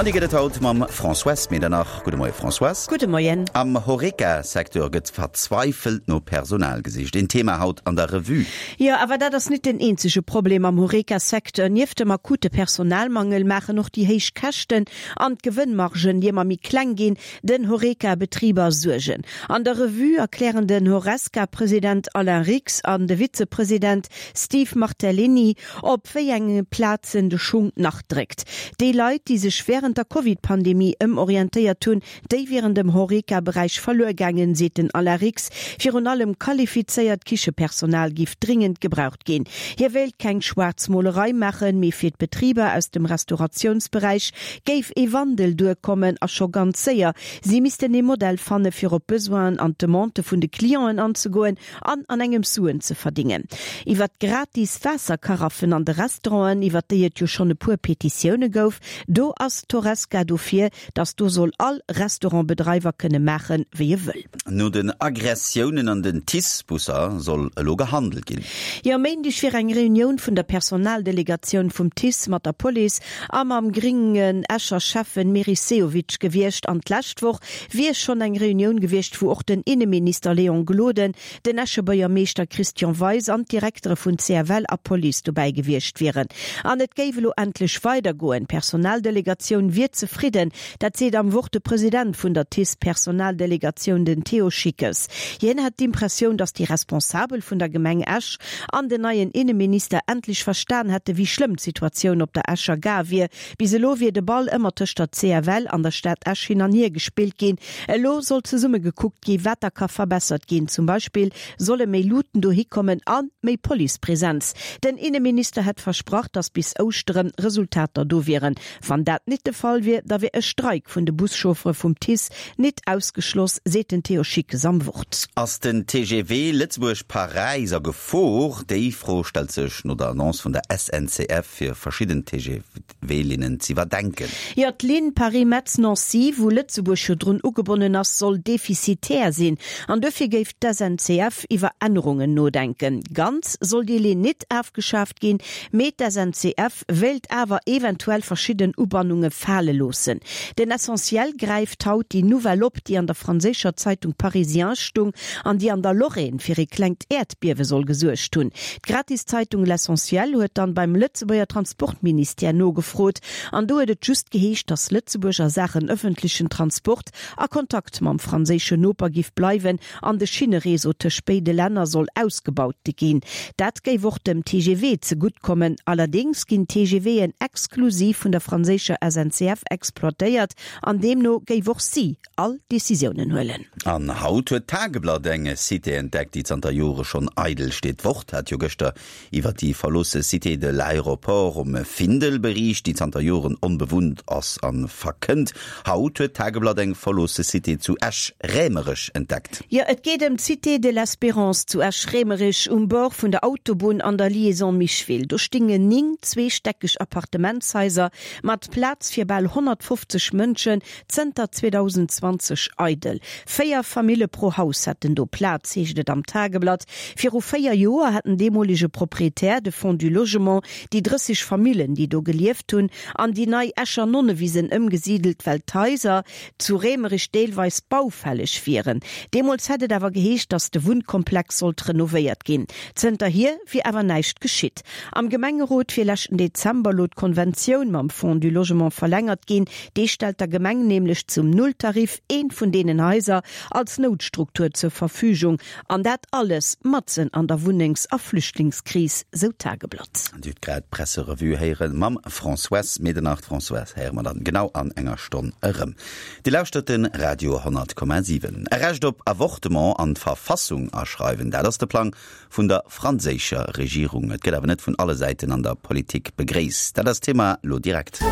An déi gëtt et haut mam Françoise Medernach. Gudde Moie Françoise. Gudde Moien. Am Horeca-Secteur gëtt verzweifelt no Personal gesicht. Een Thema haut an der Revue. Jo, awer dat ass nit den eenzege Problem am Horeca-Secteur. Nieft dem akute Personalmangel maachen och déi héich Käschten an d'Gewënnmargen, déi ëmmer méi kleng ginn, den Horeca-Betriber Suergen. An der Revue erklären den Horesca-President Alain Rix an de Vizepresident Steve Martellini, Op wéi enge Plazen de Schung nach dréckt. Déi Leit, déi sech wärend der Covid-Pandemie ëmorientéiert hunn, déi wieren dem Horeca-Beräich verluer gaangen, seet den Alain Rix. Virun allem qualifizéiert Kichepersonal giff dringend gebraucht ginn. Hie wéilt keng Schwaarzmolerei maachen, mee fir d'Betriber aus dem Restauratiounsberäich géif ee Wandel duerkommen a scho ganz séier. Si missten ee Modell fanne fir op d'Besoinen an d'Demandë vun de Clienten anzegoen an an engems Suen ze verdingen. Iwwer d'gratis Waasserkaraffen an de Restauranten, iwwer déi et jo schonn e puer Petitioune gouf, do ass d'Horesca dofir, datt do soll all Restaurantbedreiwer kënne maachen, wéi e wëll. No den Aggressiounen an den TICE-Busser soll elo gehandelt ginn. Jo, e Méindeg wier eng Reunioun vun der Personaldelegatioun vum TICE mat der Police a mam gréngen Escher Schäffen Meris Sehovic gewiescht an d'lescht Woch wier schonn eng Reunioun gewiescht, wou och den Inneminister Léon Gloden, den Escher Buergermeeschter Christian Weis an d'Direktere vun CFL a Police dobäi gewiescht wieren. An et géif elo endlech weidergoen. D'Personaldelegatioun wier zefridden. Dat seet am Wort de President vun der TICE-Personaldelegatioun, den Théo Schickes. Hien hätt d'Impressioun, datt déi Responsabel vun der Gemeng Esch an den neien Inneminister endlech verstan hätte wéi schlëmm d'Situatioun op der Escher Gare wier. Bis elo wier de Ball ëmmer tëscht der CFL an der Stad Esch hin an hier gespillt ginn. Elo soll zesumme gekuckt gi wat da ka verbessert ginn. Zum Beispill solle méi Luuten dohi kommen a méi Policepresenz. Den Inneminister hätt versprach, datt bis Ouschtere Resultater do wieren. Wann dat nit de Fall wier, da wier e Streik vun de Buschauffere vum TICE nit ausgeschloss, seet den Théo Schickes am Wort. Ass den TGV Lëtzebuerg-Paräis a Gefor? Déi Fro stellt sech no der Annonce vun der SNCF, fir verschidden TGV-Linnen z'iwwerdenken. Jo, d'Linn Paris-Metz-Nancy, wou Lëtzebuerg jo drun ugebonnen ass, soll defizitär sinn. An duerfir géif d'SNCF iwwer Ännerungen nodenken. Ganz soll déi Linn nit afgeschaaft ginn, mee d'SNCF wéilt awer eventuell verschidden Ubannunge fale loossen. Den Essentiel gräift haut déi Nouvelle op, déi an der franséischer Zeitung Parisien stung an déi an der Lorraine fir ee klengt Äerdbiewe soll gesuergt hunn. D'Gratiszeitung L'Essentiel huet dann beim Lëtzebuerger Transportministère nogefrot an do huet et just geheescht, datt Lëtzebuerg a Saachen ëffentlechen Transport a Kontakt mam franséischen Noper giff bleiwen an de Schinnereseau tëscht béide Länner soll ausgebaut ginn. Dat géif och dem TGV zegutt kommen. Allerdéngs ginn d'TGVen exklusiv vun der franséischer SNCF exploitéiert an deemno géif och si all Decisiounen huelen. An haut huet d'Tageblatt eng Cité entdeckt, déi zanter Jore schonn eidel steet. D'Wort hat jo gëschter iwwer déi verloosse Cité de l'Aéroport um Findel beriicht, déi zanter Joren onbewunnt ass a verkënnt. Haut huet d'Tageblatt eng verloosse Cité zu Esch-Raemerech entdeckt. Jo, et geet ëm d'Cité de l'Espérance zu Esch-Raemerich um Bord vun der Autobunn an der Liaison Micheville. Do stingen 9 zweestäckeg Appartementshaiser mat Plaz fir bal 150 Mënschen Zënter 2020 eidel. 4 Famille pro Haus hätten do Plaz, heescht et am Tageblatt. Viru 4 Joer hat den deemolege Proprietär, de Fonds du Logement, déi 30 Famillen, déi do gelieft hunn, an déi nei Escher Nonnewisen ëmgesidelt, well d'Haiser zu Raemerich deelweis baufälleg wieren. Deemools hätt et awer geheescht, datt de Wunnkomplex sollt renovéiert ginn. Zënterhier wier awer näischt geschitt. Am Gemengerot wier leschten Dezember lo d'Konventioun mam Fonds du Logement verlängert ginn. Dee stellt der Gemeng nämlech zum Nulltarif eent vun deenen Haiser als Noutstruktur zur Verfügung. An dat alles matzen an der Wunnengs a Flüchtlingskris, sou d'Tageblatt. Dir hutt grad d'Presserevue héiere mam Françoise Medernach. D'Françoise héiere mer dann genau an enger Stonn erëm. Dir lauschtert de Radio 100,7. E Recht op Avortement an d'Verfassung aschreiwen, dat ass de Plang vun der franséischer Regierung. Et gëtt awer net vun alle Säiten an der Politik begréisst. Dat ass d'Thema lo direkt.